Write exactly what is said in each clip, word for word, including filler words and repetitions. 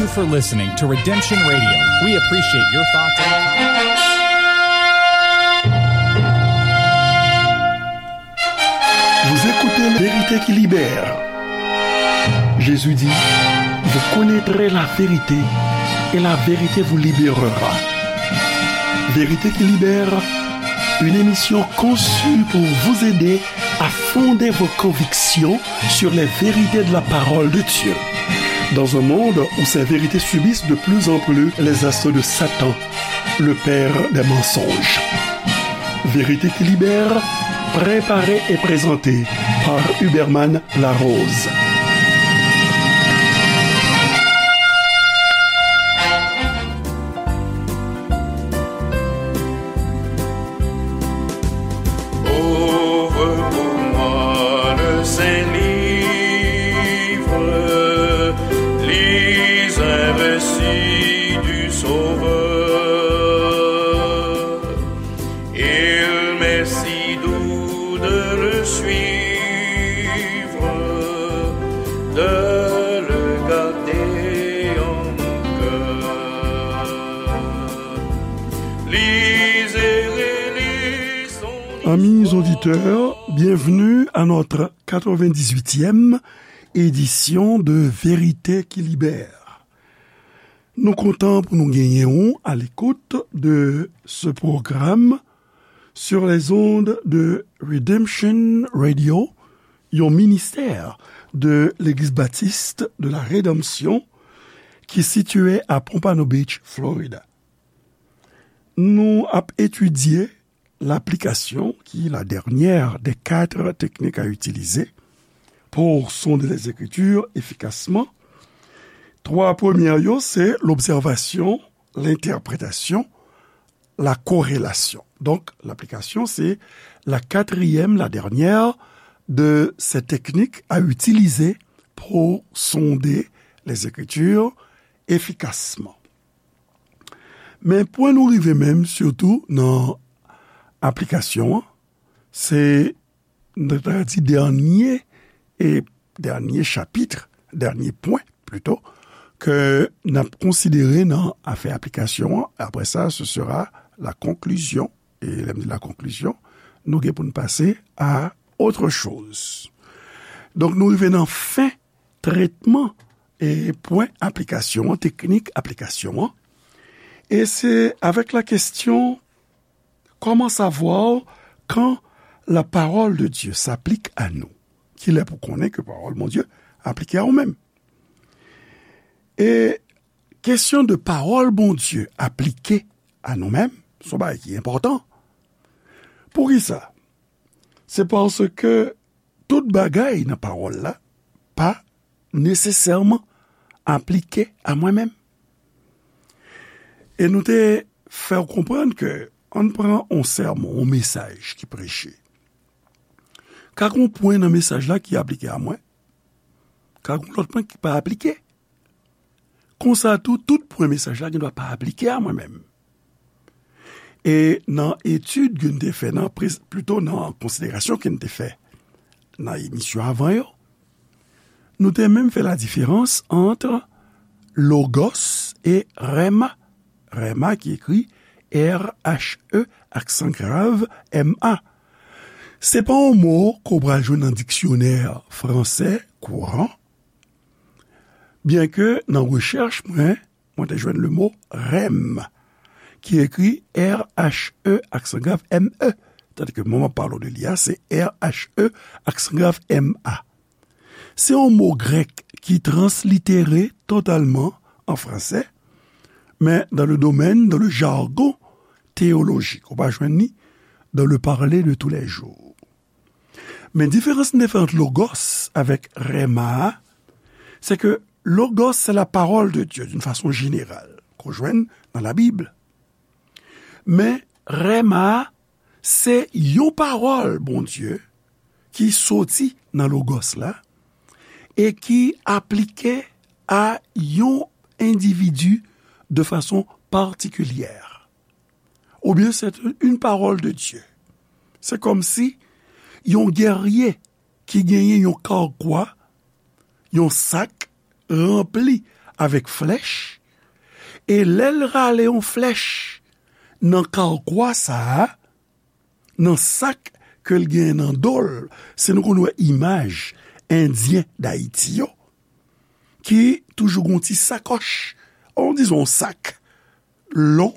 Thank you for listening to Redemption Radio. We appreciate your thoughts and comments. Vous écoutez La Vérité qui libère. Jésus dit, vous connaîtrez la vérité et la vérité vous libérera. Vérité qui libère, une émission conçue pour vous aider à fonder vos convictions sur les vérités de la parole de Dieu. Dans un monde où ces vérités subissent de plus en plus les assauts de Satan, le père des mensonges. Vérité qui libère, préparée et présentée par Huberman Larose. Ouvre pour moi le saint livre, lis un récit du Sauveur. Il m'est si doux de le suivre, de le garder en mon cœur. Lisez et lisons. Amis auditeurs, bienvenue à notre quatre-vingt-dix-huitième édition de Vérité qui libère. Nou kontan pou nou genyen w à l'écoute de ce programme sur les ondes de Redemption Radio, yon ministè de Legliz Batis de la Redanmsyon ki sitiye à Pompano Beach, Florida. Nou ap etidye laplikasyon, ki la dènyè dè kat teknik a itilize pou sonde les Écritures efikasman. Twa premyè yo, se lobsèvasyon, lentèpretasyon, la korelasyon. Donk, laplikasyon, se la katriyèm, la dènyè de ces techniques à utiliser pour sonder les Écritures efficacement. Men pwen nou rive menm, sitou nan aplikasyon an, se, nou ta di, dènye, e dènye chapit, dènye pwen, plito, ke n ap konsidere nan afè aplikasyon an. Apre sa, ce sera la conclusion. E lè m di la conclusion, nou gen pou n pase à autre chose. Donk, nou rive nan fen tretman e pwen aplikasyon an, teknik aplikasyon an. E se avec la question, comment savoir quand la parole de Dieu s'applique à nous? Kilè pou konnen ke pawòl Bondye aplike a ou menm? E kesyon de pawòl Bondye aplike a nou menm, se yon bagay ki enpòtan. Poukisa? Se paske tout bagay nan pawòl la pa nesesèman aplike a mwen menm. E nou te fè w konprann ke, ann pran yon sèmon, yon mesaj ki preche. Ka gen yon pwen nan mesaj la ki aplike a mwen, ka gen yon lòt pwen ki pa aplike. Konsa tou, tout pwen mesaj la gendwa pa aplike a mwen menm. E nan etid ke n te fè, nan prez-, plito nan konsiderasyon ke n te fè nan emisyon avan yo, nou te menm fè la diferans ant logos e rhema. Rhema ki ekri R H E aksan grav M A. Se pa yon mo ke w pral jwenn nan diksyonè fransè kouran, byenke nan rechèch mwen, mwen te jwenn le mo rèm, ki ekri R H E aksan grav M E. Tandis ke mwen m ap pale w de li a, se R H E aksan grav M A. Se yon mo grèk ki translitere totalman an fransè, men dans le domaine, dans le jargon théologique, ou pa jwenn li dans le parler de tous les jours. Men diferans n te fè ant logos avèk rhema a, se ke logos se la parole de Dieu d'une façon générale, ke w jwenn nan Labib. Men rhema a, se yon pawòl Bondye ki soti nan logos la e ki aplike a yon endividi de fason patikilyè. Oubyen c'est une parole de Dieu. Se kòmsi yon gèrye ki genyen yon kawkwa, yon sak ranpli avèk flèch, e lè l rale yon flèch nan kawkwa sa a, nan sak ke l gen nan do l, si nou konn wè imaj Endyen Dayiti yo, ki toujou gen yon ti sakòch, on dizon yon sak lon,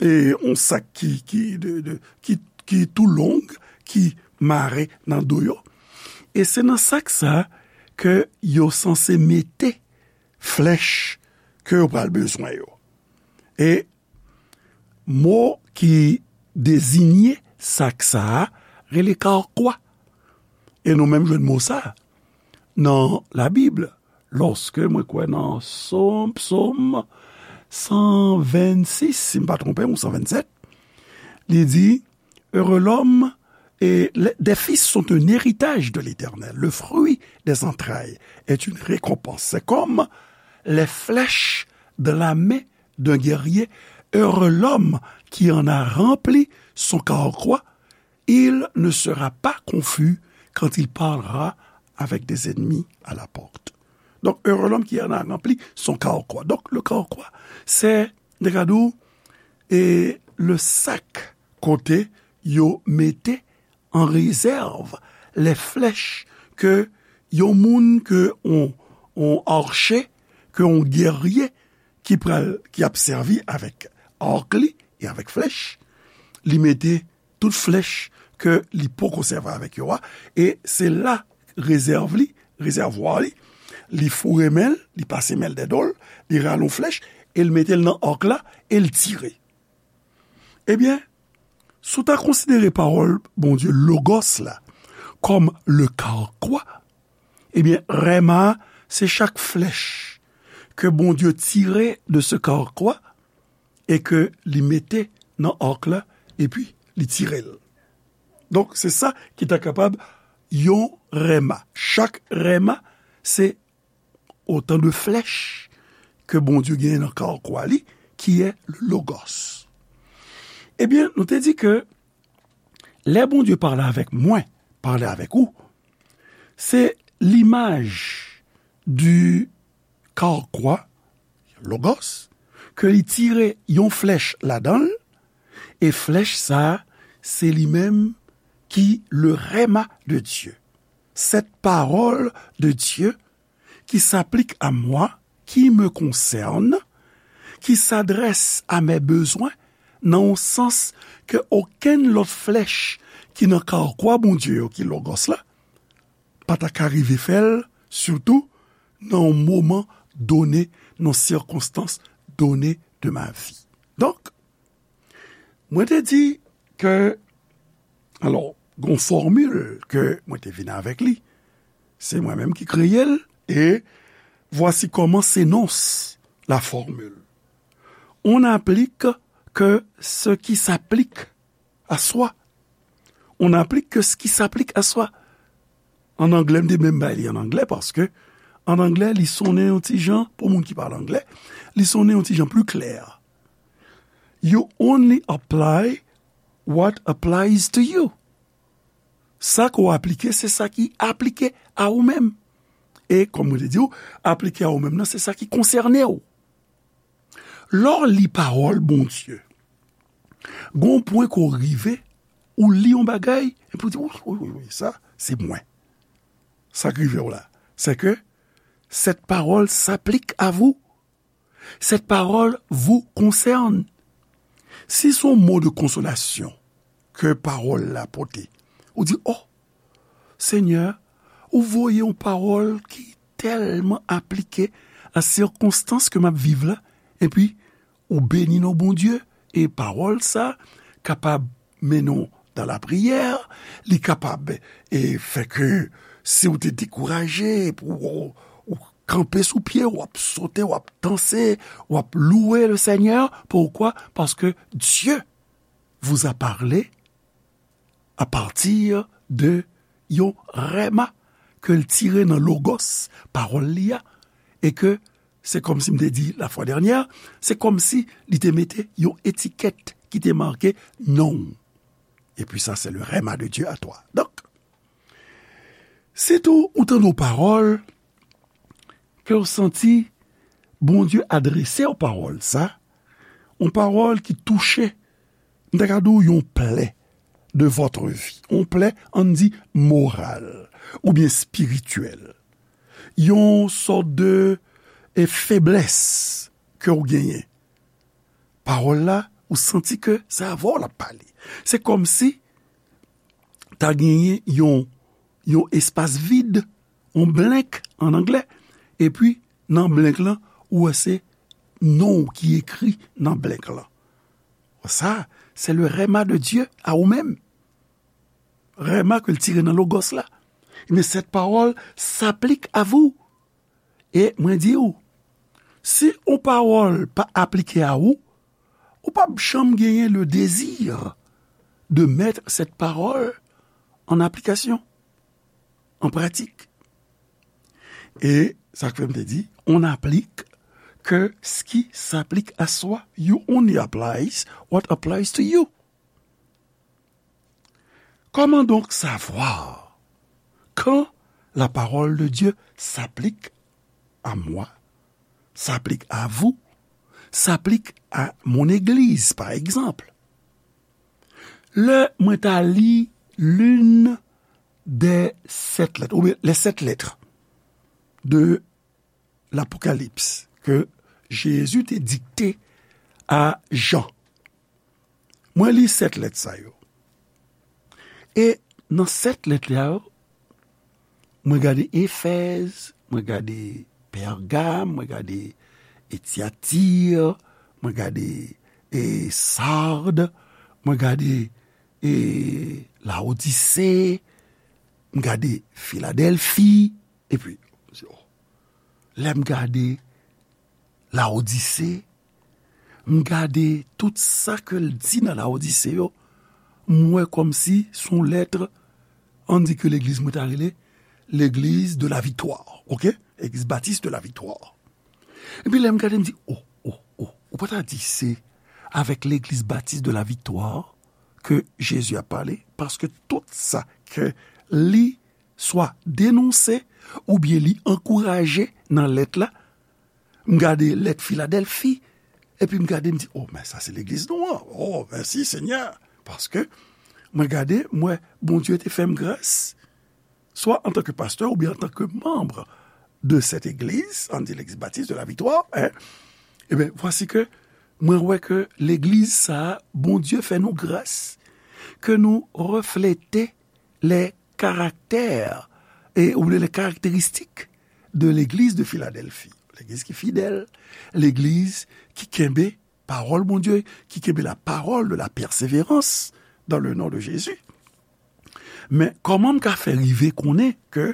e yon sak ki, ki, de, de, ki, ki tou long, ki mare nan do yo. E se nan sak sa ke yo sanse mete flèch ke yo pral bezwen yo. E mo ki deziye sak sa a rele kawkwa. E nou menm jwenn mo sa a nan Labib, lòske mwen kwè nan Sòm, Sòm san vennsis, si m pa twonpe m, ou san vennsèt, li di, Heureux l'homme et les, des fils sont un héritage de l'Éternel. Le fruit des entrailles est une récompense. C'est comme les flèches de la main d'un guerrier. Heureux l'homme qui en a rempli son carquois. Il ne sera pas confus quand il parlera avec des ennemis à la porte. Donc, heureux l'homme qui en a rempli son carquois. Donc, le carquois, c'est, regardez, et le sac kote yo mete an rezèv lè flèch ke yon moun, ke yon, yon arche, ke yon gèrye ki pral, ki ap sèvi avèk ark li e avèk flèch, li mete tout flèch ke li poko sèvi avèk yo a, e se la rezèv li, rezèvwa li, li foure men l, li pase men l dèyè do l, li rale yon flèch, e l mete l nan ark la, e l tire. Ebyen, si w ta konsidere pawòl Bondye, Logos la, kòm le carquois, ebyen, rèma a, se chak flèch ke Bondye tire de ce carquois e ke li mete nan ark la, epi li tire l. Donk, se sa ki ta kapab yon rèma. Chak rèma, se otan de flèch ke Bondye genyen nan carquois li, ki est le Logos. Ebyen, nou te di ke lè Bondye pale avèk mwen, pale avèk ou, se limaj du carquois, Logos, ke li tire yon flèch ladan l, e flèch sa a, se li menm ki le rèma de Dieu. Cette parole de Dieu qui s'applique à moi, qui me concerne, qui s'adresse à mes besoins, nan yon sans ke okenn lòt flèch ki nan carquois Bondye yo, ki Logos la, pa ta ka rive fè l, sitou nan yon moman done, nan sirkonstans done de ma vie. Donk, mwen te di ke, alò, gon fòmil ke mwen te vin avèk li, se mwen menm ki kreye l, e voici comment s'énonce la formule. On n'applique que ce qui s'applique à soi. On n'applique que ce qui s'applique à soi. An anglè, m te menm bay li an anglè, paske an anglè, li sonnen yon ti jan, pou moun ki pale anglè, li sonnen yon ti jan pli klè. You only apply what applies to you. Sa ke w aplike, se sa ki aplike a ou menm. E, kòm mwen te di w, aplike a ou menm nan, se sa ki konsène w. Lè w li pawòl Bondye, gon pwen ke w rive, ou li yon bagay, epi w di, wi, wi, wi, wi, sa, se mwen. Sa k rive w la, c'est que cette parole s'applique à vous. Cette parole vous concerne. Si se yon mo de konsolasyon ke pawòl la pote, ou di, oh, Senyè, ou voye yon pawòl ki tèlman aplike a sirkonstans ke m ap viv la, epi ou beni non Bondye, e pawòl sa kapab mennen w dan lapriyè, li kapab, e, fè ke si w te dekouraje, epi w, ou kanpe sou pye, w ap sote, w ap danse, w ap louwe le Senyè. Poukwa? Paske Dieu vous a parlé à partir de yon rèma ke l tire nan Logos, pawòl li a, e ke se kòmsi m te di la fwa dènyè, se kòmsi li te mete yon etikèt ki te make non w. Et puis ça, c'est le rèma de Dieu à toi. Donk, sitou ou tande yon pawòl ke w santi Bondye adrese w pawòl sa, yon pawòl ki touche, m ta ka di w yon plè de votre vie, yon plè, ann di, moral oubyen espirityèl, yon sòt de, e, feblès ke w genyen. Pawòl la, ou santi ke se avè w l ap pale. Se kòmsi ta genyen yon, yon espas vid, yon blank an anglè, epi nan blank lan, ou wè se non w ki ekri nan blank lan. Sa, c'est le rhema de Dieu à ou menm. Rhema ke l tire nan Logos la. Mais cette parole s'applique à vous. E mwen di w, si yon pawòl pa aplike a ou, ou p ap janm genyen le désir de mettre cette parole en application, en pratique. E sa k fè m te di, on n'applique que ce qui s'applique à soi. You only applies what applies to you. Comment donc savoir quand la parole de Dieu s'applique à moi, s'applique à vous, s'applique à mon église, par exemple? Lè mwen ta li l'une des sept lettres, oubyen les sept lettres de l'Apocalypse ke Jezi te dikte a Jan. Mwen li sèt lèt sa yo. E nan sèt lèt la yo, mwen gade Efèz, mwen gade Pègam, mwen gade Etyatir, mwen gade, e, Sard, mwen gade, e, Laodise, m gade Filadèlfi, epi, lè m gade Laodise, m gade tout sa ke l di nan Laodise yo, m wè kòmsi se yon lèt, ann di ke legliz mwen ta rele legliz de la viktwa, oke? Legliz batis de la viktwa. Epi lè m gade, m di, o, o, o, ou pa ta di se avèk legliz batis de la viktwa ke Jezi ap pale, paske tout sa ke li swa denonse oubyen li ankouraje nan lèt la, m gade lèt Filadèlfi, epi m gade, m di, o, men sa se legliz nou an. O, mèsi, Senyè. Paske mwen gade, m wè Bondye te fè m gras, swa antanke pastè oubyen antanke manm de cette église, ann di legliz batis de la viktwa, en, ebyen, vwasi ke mwen wè ke legliz sa a, Bondye fè nou gras, ke nou reflete les caractères, e, oubyen les caractéristiques de l'église de Philadelphie. Legliz ki fidèl, legliz ki kenbe pawòl Bondye, ki kenbe la parole de la persévérance dans le nom de Jésus. Men kòman m ka fè rive konnen ke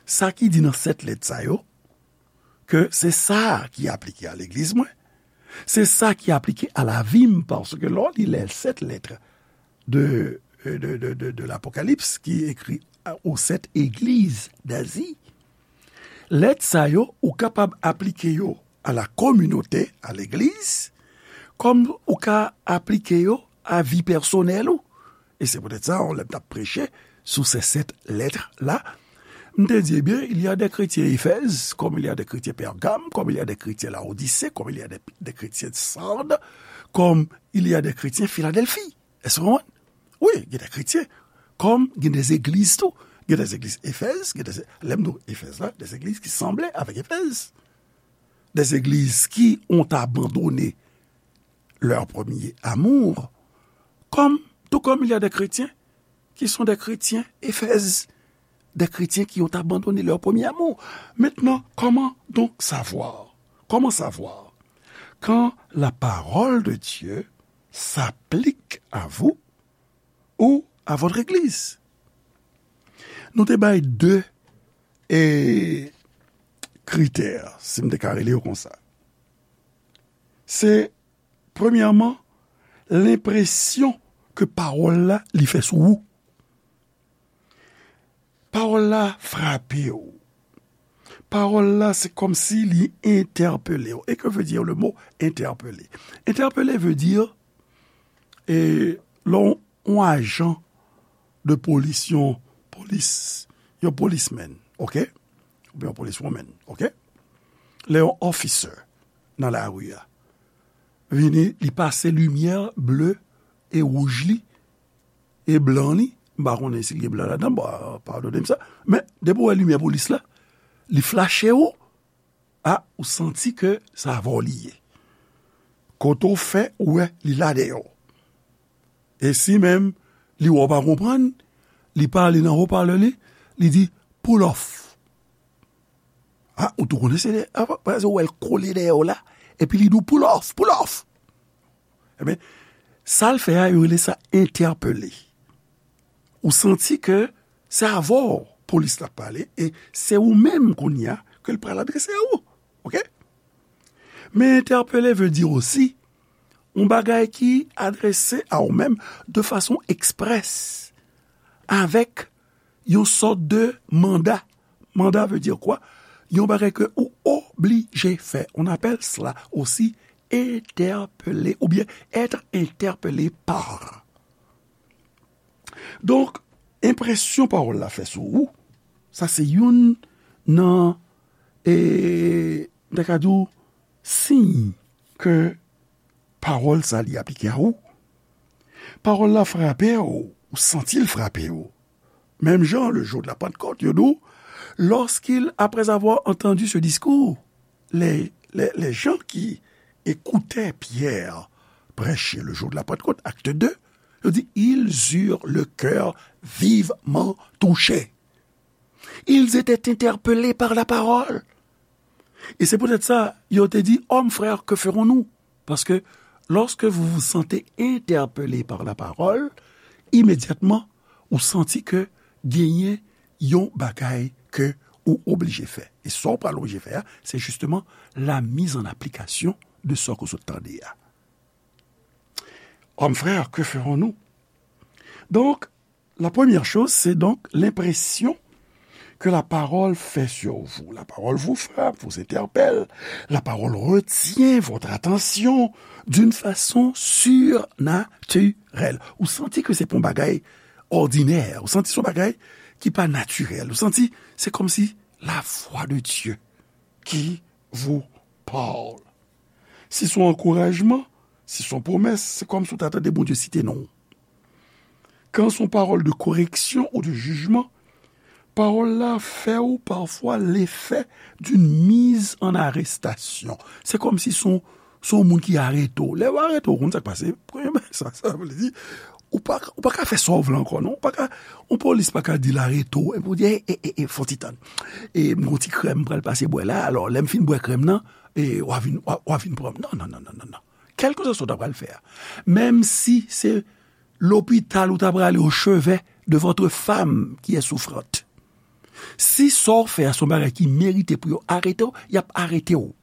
sa ki di nan sèt lèt sa yo, ke se sa ki aplike a legliz mwen, se sa ki aplike a lavi m, paske lè w li les sept lettres de, de, de, de, de l'Apocalypse ki ekri aux sept églises d'Asie, lèt sa yo, ou kapab aplike yo a la communauté, a legliz, kòm ou ka aplike yo a vi pèsonèl ou. E se poutèt sa, lè m t ap preche sou se sèt lèt la, m te di, ebyen, il y a des chrétiens Éphèse, comme il y a des chrétiens Pergame, comme il y a des chrétiens Laodicée, comme il y a des, des chrétiens Sardes, comme il y a des chrétiens Philadelphie. Èske w konprann? Wi, gen de kretyen. Kòm gen de legliz tou. Gen de legliz Efèz, gen de, lè m di w Efèz la, de legliz ki sanble avèk Efèz. De legliz ki ont abandonné leur premier amour. Comme, tout comme il y a des chrétiens qui sont des chrétiens Éphèse, des chrétiens qui ont abandonné leur premier amour. Maintenant, comment donc savoir? Comment savoir quand la parole de Dieu s'applique à vous ou à votre église? Nou te bay de, e, kritè, si m te ka rele yo konsa. Se, premyèman, lenpresyon ke pawòl la li fè sou ou. Pawòl la frape w. Pawòl la, se kòmsi li entèpele w. Et que veut dire le mot interpeller? Interpeller veut dire, e, lè yon, yon ajan de polis, yon polis, yon policeman, oke? Oubyen yon policewoman, oke? Lè yon officer, nan lari a. Vini, li pase limyè ble e wouj li, e blan li, m pa konnen si l gen blan ladan, bon, padone m sa, men depi w wè limyè polis la, li flache w, a, ou santi ke se avè w li ye. Kote w fè, ou wè, li la dèyè w. E si menm li wè w pa konprann, li pale nan wopalè li, li di, "Pull off." A, ou tou konnen se lè, a, pa, pa, ou wè l kole dèyè w la, epi li di w, "Pull off, pull off." Ebyen, sa l fè a, yo rele sa entèpele. Ou santi ke se avè w polis la ap pale, e se ou menm kounye a ke l pral adrese a ou. Oke? Men entèpele vle di osi yon bagay ki adrese a ou menm de fason eksprès, avèk yon sòt de manda. Manda vle di kwa? Yon bagay ke ou oblije fè. On appelle cela aussi interpeller ou bien être interpellé par. Donk, enpresyon pawòl la fè sou ou, sa se youn nan, e, m ta ka di w, siy ke pawòl sa li aplike a ou. Pawòl la frape w, ou santi l frape w. Menm jan, le jour de la Pentecôte, yo di w, lorsqu'il, après avoir entendu ce discours, les, les, les gens qui écoutaient Pierre prêcher le jour de la Pentecôte, acte deux, yo di, ils eurent le cœur vivement touché. Ils étaient interpellés par la parole. Et c'est peut-être ça, yo te di, hommes, frères, que ferons-nous? Parce que lorsque vous vous sentez interpellé par la parole, immédiatement, ou santi ke genyen yon bagay ke ou oblije fè. E sa w pral oblije fè a, se justement la mise en application de sa ke w sot tande a. Hommes, frères, que ferons-nous? Donc, la première chose, c'est donc l'impression que la parole fait sur vous. La parole vous frappe, vous interpelle. La parole retient votre attention d'une façon surnaturelle. Ou santi ke se pa yon bagay òdinè. Ou santi se yon bagay ki pa natirèl. Ou santi se kòmsi la voix de Dieu qui vous parle. Si se yon ankourajman, si se yon pwomès, se kòmsi w ta tande Bondye site non w. Quand c'est une parole de correction ou de jugement, pawòl la fè w pafwa lefè d'une mise en arrestation. Se kòmsi se yon, se yon moun ki arete w. Lè yo arete w, ou konn sa k pase? Premye bagay sa, sa vle di, ou pa, ou pa ka fè sa w vle ankò, non. Ou pa ka, yon polis pa ka di l arete w, epi w di, "E, e, e, e, fè yon ti tann. E, m gon ti krèm m pral pase bwè la, alò, lè m fin bwè krèm nan, e, w a vin, w a, w a vin pran m." Non, non, non, non, non, non. Kèlkeswa sa w ta pral fè a. Menm si se lopital ou ta prale au chevet de votre femme qui est souffrante. Si sa w fè a se yon bagay ki merite pou yo arete w, y ap arete w.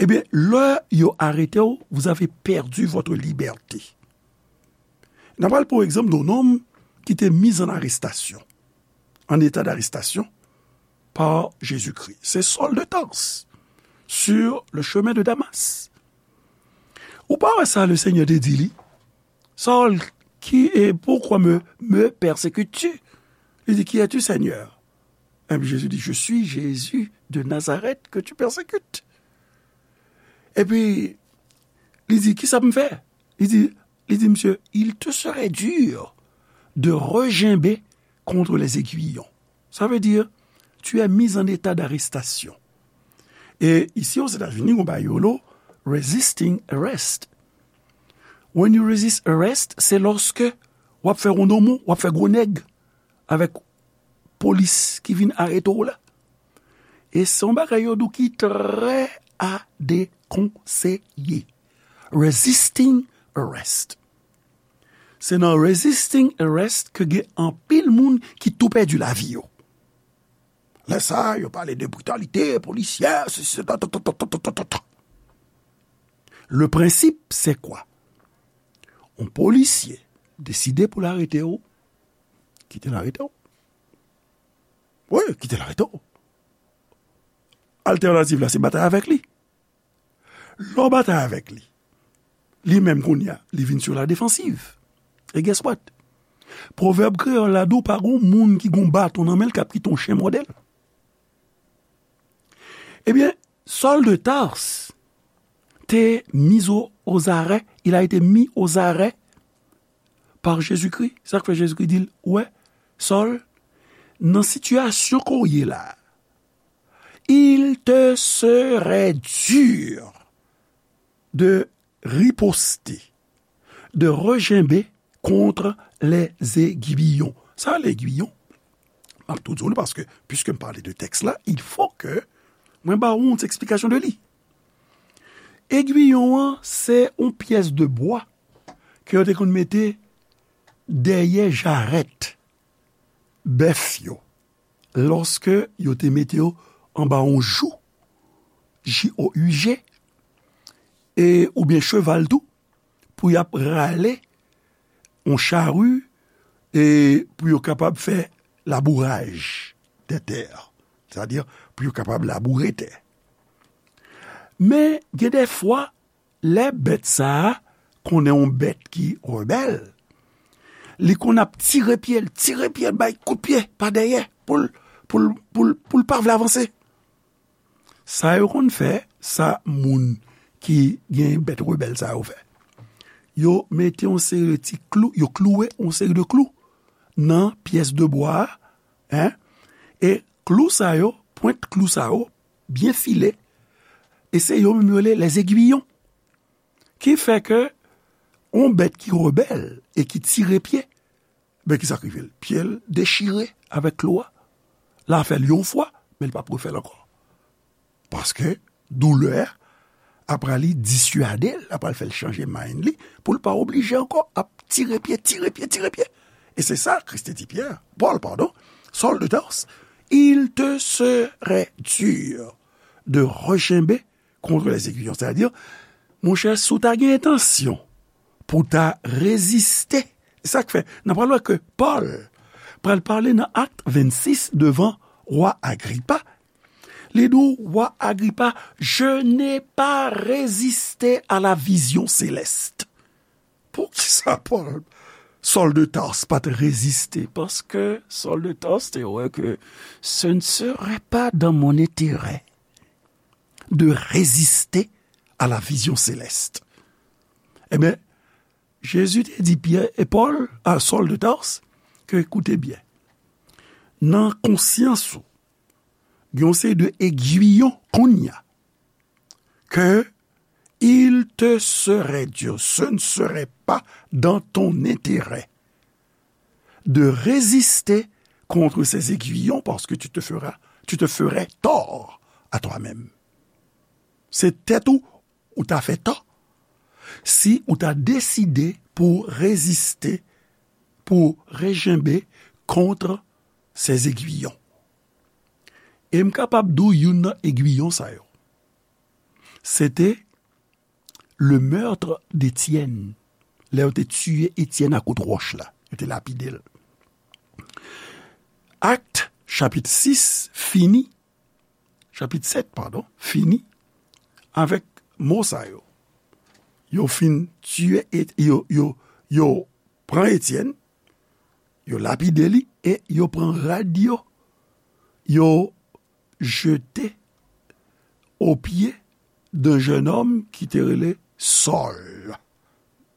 Ebyen, lè yo arete w, vous avez perdu votre liberté. N a pral pran egzanp de yon nonm ki te mis en arrestation, en état d'arrestation, par Jésus-Christ. Se Saül de Tarse, sur le chemin de Damas. Ou pa wè sa le Seigneur te di li? Saül, qui est, pourquoi me, me persécutes-tu? Li di, "Qui es-tu, Seigneur?" Epi Jésus di, "Je suis Jésus de Nazareth que tu persécutes." Epi, li di, "Kisa m fè?" Li di, li di, "Monsieur, il te serait dur de reginber contre les aiguillons." Ça veut dire, tu es mis en état d'arrestation. E isi Ozetazini, gon bagay yo rele resisting arrest. When you resist arrest, se lòske w ap fè wondomo, w ap fè gwo nèg avèk polis ki vin arete w la. E se yon bagay yo di w ki trè a dekonseye. Resisting arrest. Se nan resisting arrest ke gen anpil moun ki tou pèdi lavi yo. Lè sa, yo pale de britalite polisyè, se, se, ta, ta, ta. Le prensip, se kwa? Yon polisye deside pou l arete w, kite l arete w. Wi, kite l arete w. Altènativ la, se batay avèk li. Lè w batay avèk li, li menm kounye a, li vin sur la défensive. E guess what? Pwovèb kreyòl la di w pa gon moun ki gon baton nan men l k ap kite yon chen mòde l. Ebyen, Saul de Tarse te mis au, aux arrêts, il a été mis aux arrêts par Jésus-Christ. Sa k fè Jezikri di l, ou wè, Saul, nan sitiyasyon ke w ye la, il te serait dur de riposter, de regimber contre les aiguillons. Sa, les aiguillons, m ap tou di w li, paske, puisque m pale de tèks la, il faut que mwen ba ou yon ti eksplikasyon de li. Egwiyon an, se yon pyès de bwa ke yo te konn mete dèyè jarèt bèf yo, lòske yo te mete yo anba yon jou, J O U G, e, oubyen cheval tou, pou y ap rale yon chari, e, pou yo kapab fè labouraj de tè. Sètadi, pou yo kapab laboure tè. Men, gen de fwa, lè bèt sa a konnen yon bèt ki rebèl, li konn ap tire pye l, tire pye l, bay kout pye pa dèyè, pou l, pou l, pou l, pou l pa vle avanse. Sa yo konn fè, sa moun ki gen bèt rebèl sa yo fè, yo mete yon seri de ti klou, yo klouwe yon seri de klou nan pyès de bwa a, en, e klou sa yo, pwent klou sa yo, byen file, e se yo menm yo rele les aiguillons. Ki fè ke yon bèt ki rebèl e ki tire pye, ben, ki sa k rive l? Pye l dechire avèk klou a. L a fè l yon fwa, men l p ap refè l ankò. Paske doulè a ap pral diswade l, ap pral fè l chanje mind li, pou l pa oblije ankò ap tire pye, tire pye, tire pye. E se sa Kris te di Pyè, Pòl, padon, Saul de Tarse, il te serait dur de regimber contre les aiguillons. Sètadi, monchè, si w ta gen entansyon pou w ta reziste, e sa k fè, n ap pral wè ke Pòl pral pale nan Akt vennsis devan wa Agripa. Li di w, wa Agripa, je n'ai pas résisté à la vision céleste. Poukisa Pòl, Saul de Tarse pa t reziste? Paske Saul de Tarse te wè ke ce ne serait pas dans mon intérêt de résister à la vision céleste. Ebyen, Jezi te di Pyè e Pòl, a Saul de Tarse, ke, koute byen, nan konsyans ou, gen yon seri de egwiyon kounye a, ke il te serait dur, ce ne serait pas dans ton intérêt de résister contre ces aiguillons parce que tu te feras, tu te ferais tort à toi-même. Se tèt ou ou ta fè tò si ou ta deside pou reziste, pou rejenbe kont ces aiguillons. E m kapab di w youn nan egwiyon sa yo, se te le meurtre d'Étienne. Lè yo te tiye Etyèn a kout wòch la, yo te lapide l. Akt, chapit sis, fini, chapit sèt, padon, fini avèk mo sa yo. Yo fin tiye, e yo, yo, yo pran Etyèn, yo lapide li, e yo pran rad yo, yo jete au pied d'un jeune homme ki te rele Saul.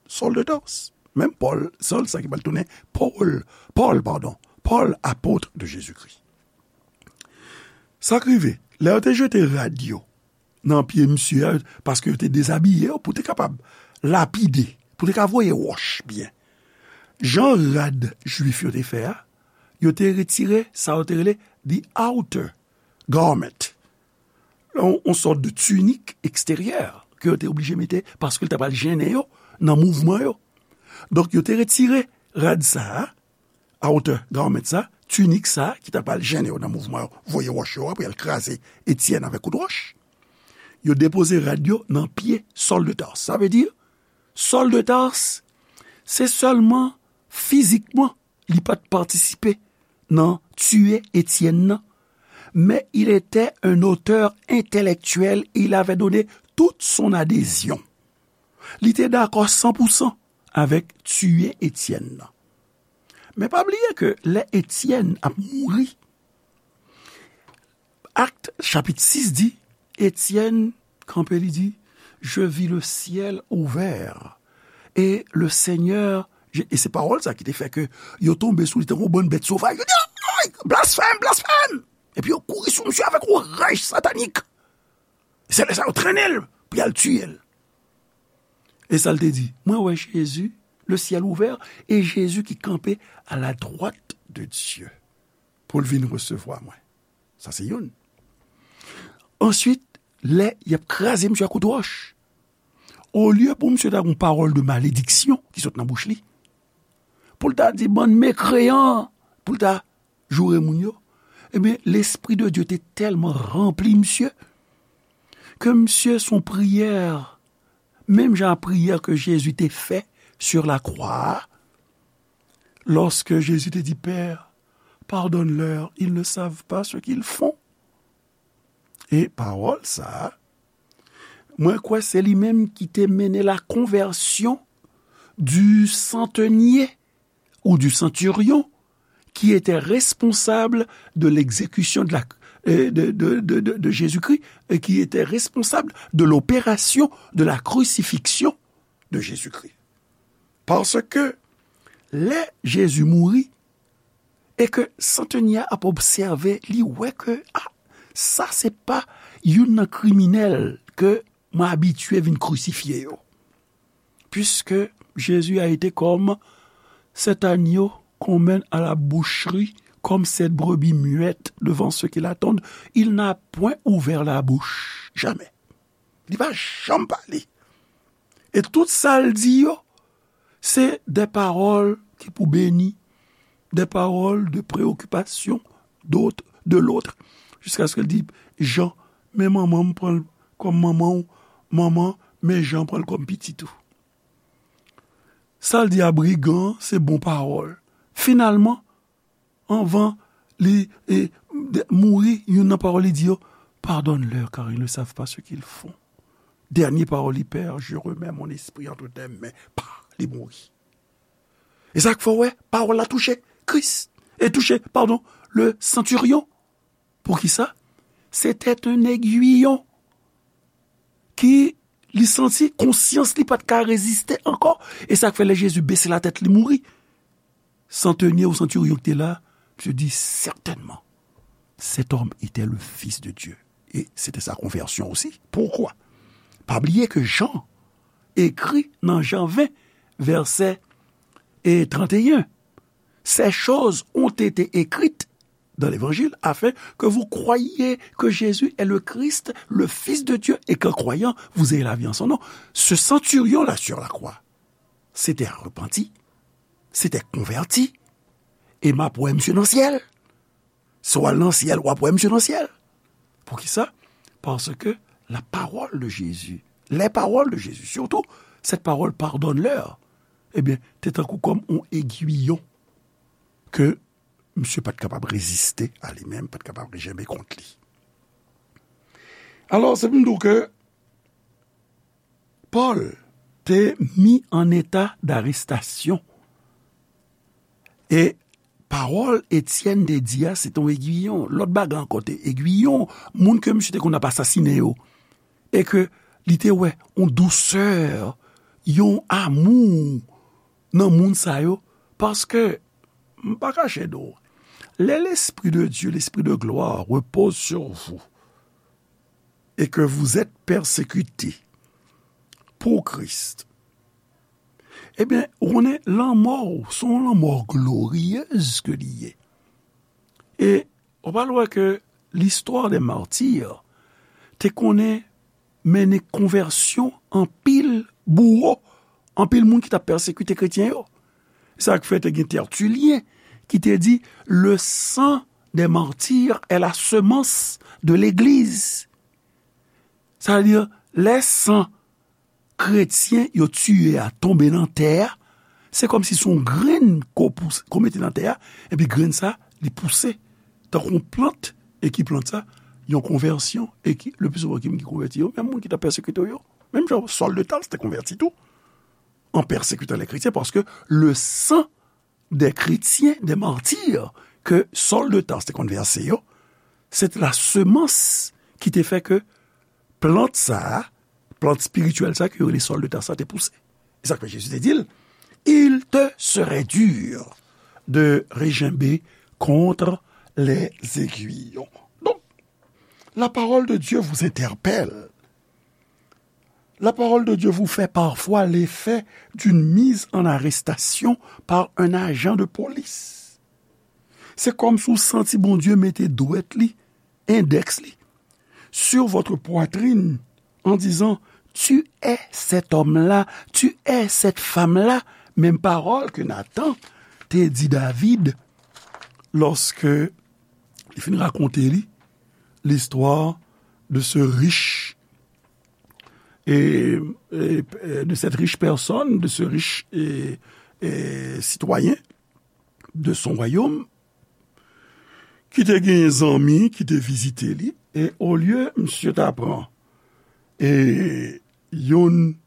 Saul de Tarse. Menm Pòl, Saul sa ki pral tounen Pòl, Pòl, padon, Pòl, apot de Jezikri. Sa k rive, lè yo te jete rad yo nan pye misye a, paske yo te dezabiye yo pou te kapab lapide, pou te ka voye wòch byen. Jan rad jwif yo te fè a, yo te retire sa yo te rele the outer garment. Yon, yon sòt de tinik eksteryè ke yo te oblije mete paske l ta pral jennen yo nan mouvman yo. Donk, yo te retire rad sa a, outer garment sa, tinik sa ki ta pral jennen yo nan mouvman yo, voye wòch yo, apre al kraze Etyèn avèk kout wòch. Yo depoze rad yo nan pye Saul de Tarse. Sa vle di, Saul de Tarse, se sèlman fizikman li pa t patisipe nan tiye Etyèn nan, mais il était un auteur intellectuel et il avait donné toute son adhésion. Li te dakò san pou san avèk tiye Etyèn nan. Men pa bliye ke lè Etyèn ap mouri, Akt chapit sis di, Étienne kanpe, li di, je vis le ciel ouvert et le Seigneur, e se pawòl sa ki te fè ke yo tonbe sou li tankou bann bèt sovaj. Yo di, ay, blasfèm, blasfèm! Epi yo kouri sou misye avèk yon raj satanik. Se lè sa yo trennen l pou y al tiye l. E sa l te di, mwen wè Jezi, le ciel ouvert, e Jezi ki kanpe à la droite de Dieu pou l vin resevwa mwen. Sa se youn. Answit, lè y ap kraze misye ak kout wòch, olye pou misye ta gen yon pawòl de malediksyon ki sot nan bouch li, pou l ta di bann mekreyan, pou l ta joure moun yo, ebyen, Lespri de Dye te tèlman ranpli misye, ke misye se yon priyè, menm jan a priyè ke Jezi te fè sur la croix, lorsque Jésus te dit, Père, pardonne-leur, ils ne savent pas ce qu'ils font. E pawòl sa a, mwen kwè se li menm ki te mennen la conversion du centenier ou du centurion qui était responsable de l'exécution de la, euh, de, de, de, de, de Jésus-Christ et qui était responsable de l'opération de la crucifixion de Jésus-Christ. Paske lè Jezi mouri, e ke santenye a ap obsève, li wè ke, a, sa se pa youn nan kriminèl ke mwen abitye vin krisifye yo. Puisque Jésus a été comme cet agneau qu'on mène à la boucherie, comme cette brebis muette devant ceux qui l'attendent, il n'a point ouvert la bouche, jamais. Li pa janm pale. E tout sa l di yo, se des paroles ki pou beni, des paroles de préoccupation d'autre, de l'autre, jusqu'à ce que l di, Jan, men manman m pran l kòm manman w, manman, men Jan pran l kòm pitit ou. Sa l di a brigan, se bon pawòl. Finalman, anvan li, e, de, mouri, youn nan pawòl li di yo, pardonne-leur, car ils ne savent pas ce qu'ils font. Dènye pawòl li, Père, je remets mon esprit entre tes mains. Pa, li mouri. E sa k fè w wè, pawòl la touche Kris. E touche, padon, le centurion. Poukisa? C'était un aiguillon ki li santi konsyans li pa t ka reziste ankò. E sa k fè lè Jezi bese latèt li mouri, santenye ou santiryon ki te la, misye di, certainement, cet homme était le Fils de Dieu. Et c'était sa conversion aussi. Pourquoi? Pa bliye ke Jan ekri nan Jan ven, vèsè, e, trannteyen, ces choses ont été écrites dans l'Évangile, afin que vous croyiez que Jésus est le Christ, le Fils de Dieu, et qu'en croyant, vous ayez la vie en son nom. Ce centurion-là sur la croix, c'était un repenti, c'était converti, e m ap wè misye nan syèl. Si w al nan syèl, w ap wè misye nan syèl. Poukisa? Paske la parole de Jésus, les paroles de Jésus, surtout cette parole pardonne-leur, ebyen, te tankou kòm yon egwiyon ke misye pa t kapab reziste a li menm, pa t kapab rejenbe kont li. Alò, se pou m di w ke Pòl te mi an eta darestasyon. E pawòl Etyèn te di a, se te yon egwiyon. Lòt bagay ankò te egwiyon, moun ke misye te konn ap asasinen yo. E ke li te wè yon dousè, yon amou nan moun sa yo, paske, m pa kache di w, lè l'Esprit de Dieu, l'Esprit de gloire repose sur vous, et que vous êtes persécutés pour Christ, ebyen, ou konnen lanmò w, se yon lanmò gloriyez ke li ye. E ou pral wè ke l'histoire des martyrs te konnen mennen konvèsyon anpil bouwo, anpil moun ki t ap pèsekite kretyen yo. Sa k fè te gen Tertulyen ki te di, le sang des martyrs est la semence de l'Église. Sa vle di, lè san kretyen yo tiye a tonbe nan tè a, se kòmsi se yon grenn ko pouse, ko mete nan tè a, epi grenn sa, li pouse tankou yon plant, e ki plant sa, yon konvèsyon, e ki, le pli souvan, ki moun ki konvèti yo, menm moun ki t ap pèsekite yo, menm jan Saul de Tarse te konvèti tou, en persécutant les chrétiens, paske le sang des chrétiens, des martyrs, ke Saul de Tarse te konn vèse yo, se te la semans ki te fè ke plant sa a, plant espirityèl sa a ke yo rele sòl de ta sa te pouse. E sa k fè Jezi te di l, il te serait dur de regimber contre les aiguillons. Donc, la parole de Dieu vous interpelle. La parole de Dieu vous fait parfois l'effet d'une mise en arrestation par un agent de police. Se kòmsi w santi Bondye mete dwèt li, endèks li, sur votre poitrine en disant, tu es cet homme-là, tu es cette femme-là. Menm pawòl ke Nathan te di David lòske li fin rakonte li l'histoire de ce riche et, et, et de cette riche personne, de ce riche et, et citoyen de son royaume, ki te genyen zanmi ki te vizite li, e olye misye ta pran e youn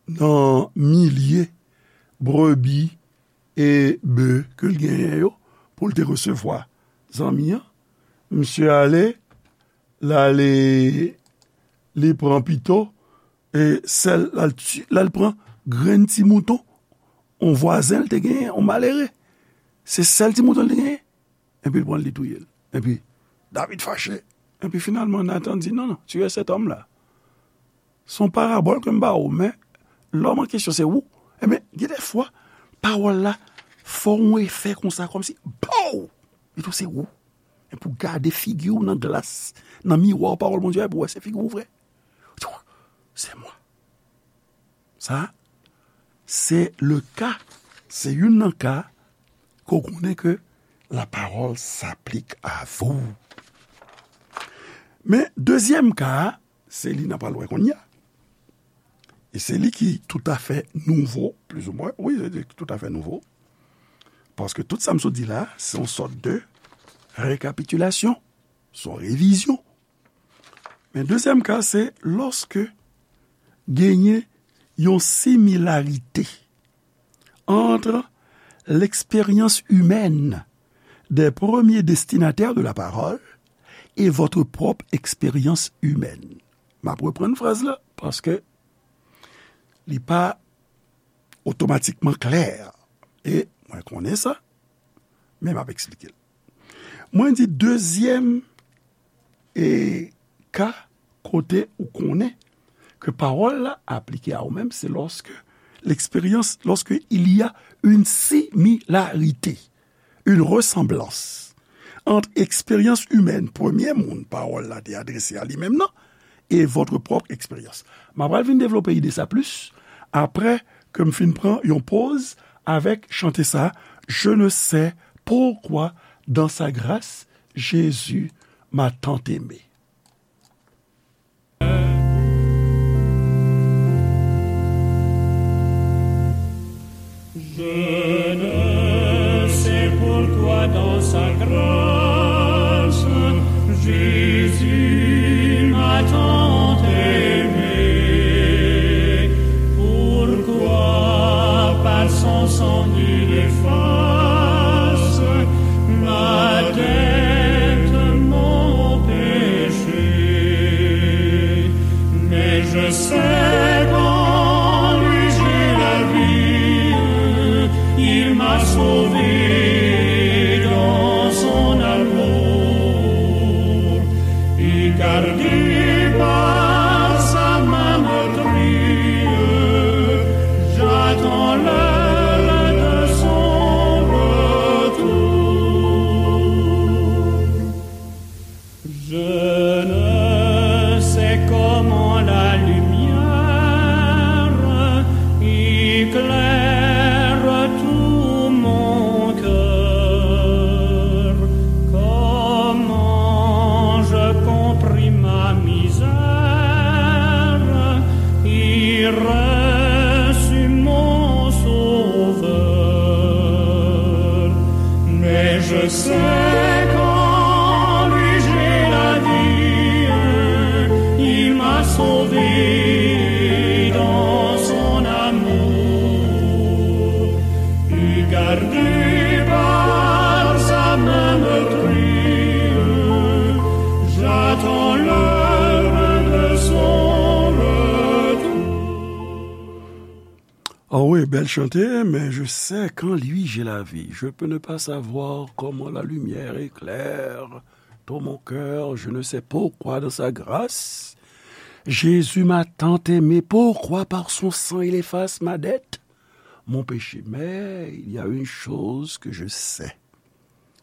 nan milye brebi e be ke l genyen yo pou l te resevwa zanmi an, misye ale, l ale, li pran pito e sèl, l al ti, l al pran grenn ti mouton yon vwazen l te genyen, yon malere. Se sèl ti mouton l te genyen. Epi l pran l, li touye l. Epi David fache. Epi finalman, Nathan di, non, non, tu es cet homme-là. Se yon parabòl ke m ba ou, men lòm an kesyon se ou. Ebyen, gen de fwa, pawòl la fè yon efè konsa, kòmsi, pow! Li tou se ou. Epi w gade figi w nan glas, nan miwa pawòl Bondye a, epi w wè se figi w vre. Ou di, c'est moi. Sa, se le ka, se youn nan ka ke w konnen ke la parole s'applique à vous. Men dezyèm ka a, se li n ap al wè kounye a. E se li ki toutafè nouvo, plizoumwen, wi, se li ki toutafè nouvo. Paske tout sa m sot di la, se yon sòt de rekapitilasyon, se yon revizyon. Men dezyèm ka, se lòske genyen yon similarite entre l'expérience humaine des premiers destinataires de la parole et votre propre expérience humaine. M ap reprann fraz la, paske li pa otomatikman klè. E mwen konnen sa, men m ap eksplike l. Mwen di dezyèm e ka kote ou konnen ke pawòl la aplike a ou menm, se lorsque l'expérience, lorsque il y a une similarité, une ressemblance entre eksperyans imèn premye moun pawòl la te adrese a li menm nan e votre propre expérience. M ap pral vin devlope ide sa plis apre ke m fin pran yon poz avèk chante sa, Je ne sais pourquoi dans sa grâce Jésus m'a tant aimé. Je ne sais pourquoi dans sa grâce, Jésus m'a tant aimé. Pourquoi par son sang il efface ma dette, mon péché. Mais je sais qu'en lui j'ai la vie, il m'a sauvé dans son amour. Et gardé par sa main meurtrie, j'attends l'heure de son retour. Je ne sais comment la lumière éclaire tout mon cœur, comment je compris ma misère et reçus mon Sauveur. Mais je sais qu'en lui j'ai la vie, il m'a sauvé dans son amour. Et gardé par sa main meurtrie, j'attends l'heure de son Oh oui, belle chanter, mais je sais qu'en lui j'ai la vie. Je peux ne pas savoir comment la lumière éclaire tout mon cœur, je ne sais pourquoi dans sa grâce. Jésus m'a tant aimé, pourquoi par son sang il efface ma dette, mon péché. Mais il y a une chose que je sais,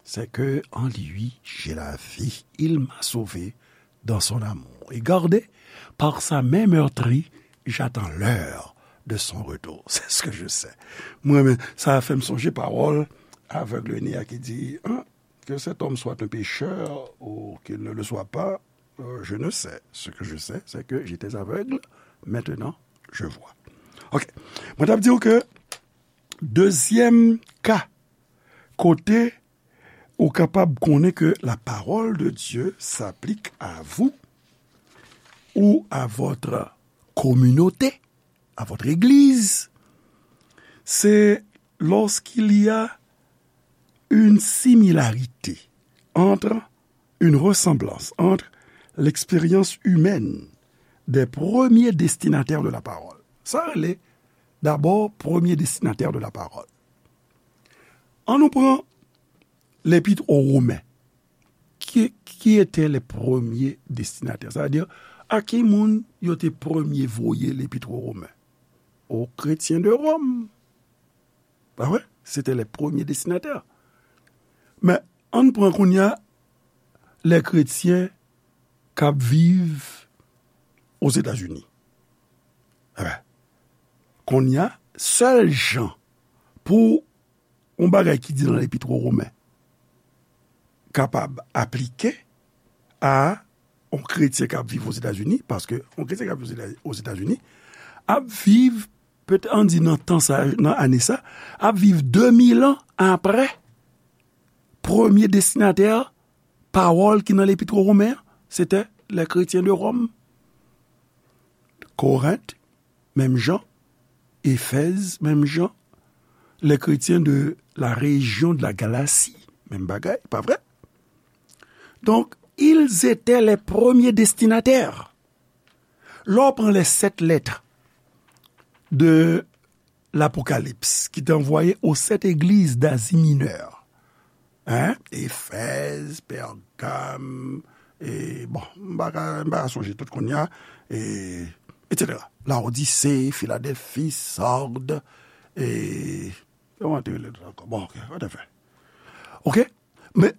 c'est que en lui j'ai la vie. Il m'a sauvé dans son amour. Et gardé par sa main meurtrie, j'attends l'heure de son retour. C'est ce que je sais. Mwen menm, sa fè m sonje pawòl avèg Nea ki di, hein, que cet homme soit un pécheur ou qu'il ne le soit pas, euh, je ne sais. Ce que je sais, c'est que j'étais aveugle, maintenant je vois. Ok. Mwen t ap di w ke dezyèm ka kote ou kapab konnen ke la parole de Dieu s'applique à vous ou à votre communauté, à votre église, c'est lorsqu'il y a une similarité entre, une ressemblance entre l'expérience humaine des premiers destinataires de la parole. Sa rele, dabò, premye destinatè de la parole. Ann nou pran Lepit o Women. Qui, qui étaient les premiers destinataires? Sa vle di, a ki moun yo te premye voye Lepit o Women? Aux chrétiens de Rome. Pa vre? C'était les premiers destinataires. Men, ann pran kounye a lè kretyen k ap viv Ozetazini. Enben, kounye a, sèl jan pou yon bagay ki di nan Lepit o Women kapab aplike a yon kretyen k ap viv Ozetazini, paske yon kretyen k ap viv Ozeta-, Ozetazini ap viv, petèt, ann di nan tan sa, nan ane sa, ap viv de mil an apre premye destinatè pawòl ki nan Lepit o Women an, se te les chrétiens de Rome. Korent, menm jan. Efèz, menm jan. Les chrétiens de la région de la Galatie, menm bagay, pa vre? Donc, ils étaient les premiers destinataires. Lè w pran les sept lettres de l'Apocalypse, ki te anvoye aux sept églises d'Asie Mineure, hein? Efèz, Pègam, e, bon, m pa ka, m pa ka sonje tout kounye a, e, et cetera. Laodise, Filadèlfi, Sard, e, kòman te rele lòt ankò? Bon, ok, whatever. Ok? Men,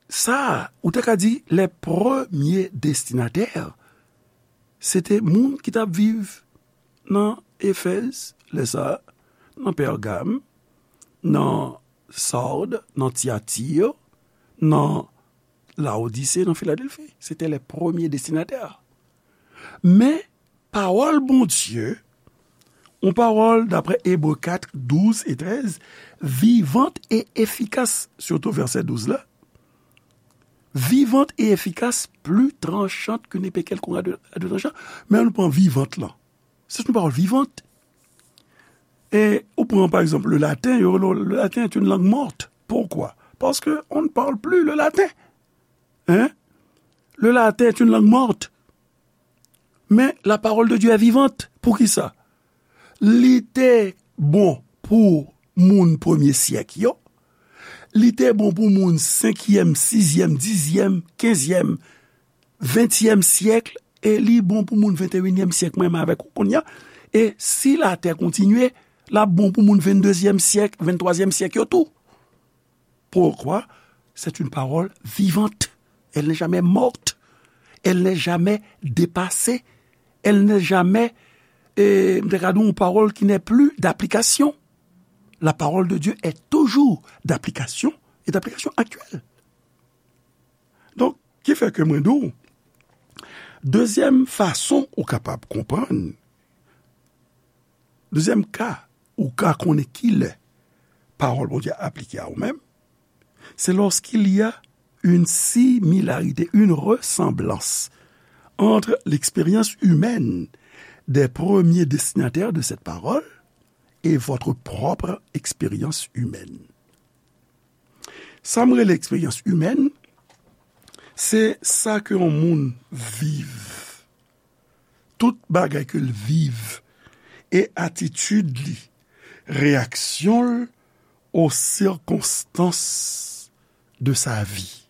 sa, ou te ka di, les premiers destinataires, se te moun ki t ap viv nan Efèz, lè sa, nan Pègam, nan Sard, nan Tyatir, nan Laodise, nan Filadèlfi. Se te les premiers destinataires. Men, pawòl Bondye, yon pawòl, daprè Ebre kat, douz e trèz, vivante et efficace, sitou vèsè douz la, vivante et efficace, plus tranchante qu'une épée quelconque à deux, à deux tranchants. Men ann pran vivante lan. C'est une parole vivante. E ou pran, par exemple, le latin, yo, le, le latin est une langue morte. Pourquoi? Parce que on ne parle plus le latin. Hein? Le latin est une langue morte. Men la parole de Dieu est vivante. Poukisa? Li te bon pou moun premye syèk yo. Li te bon pou moun senkyèm, sizyèm, dizyèm, kenzyèm, ventyèm syèk, e li bon pou moun venteyinyèm syèk, mwen menm avèk ou kounye a. E si latè kontinye, l ap bon pou moun venndezyèm syèk, venntwazyèm syèk yo tou. Pourquoi? C'est une parole vivante. Elle n'est jamais morte. Elle n'est jamais dépassée. Elle n'est jamais, eh, m te ka di yon pawòl qui n'est plus d'application. La parole de Dieu est toujours d'application et d'application actuelle. Donk, ki fè ke mwen di w, dezyèm fason ou kapab konprann, dezyèm ka ou ka konnen ki lè pawòl Bondye a aplike a ou menm, c'est lorsqu'il y a une similarité, une ressemblance entre l'expérience humaine des premiers destinataires de cette parole et votre propre expérience humaine. Sa m rele eksperyans imèn, se sa ke yon moun viv. Tout bagay ke l viv e atitid li réaction aux circonstances de sa vie.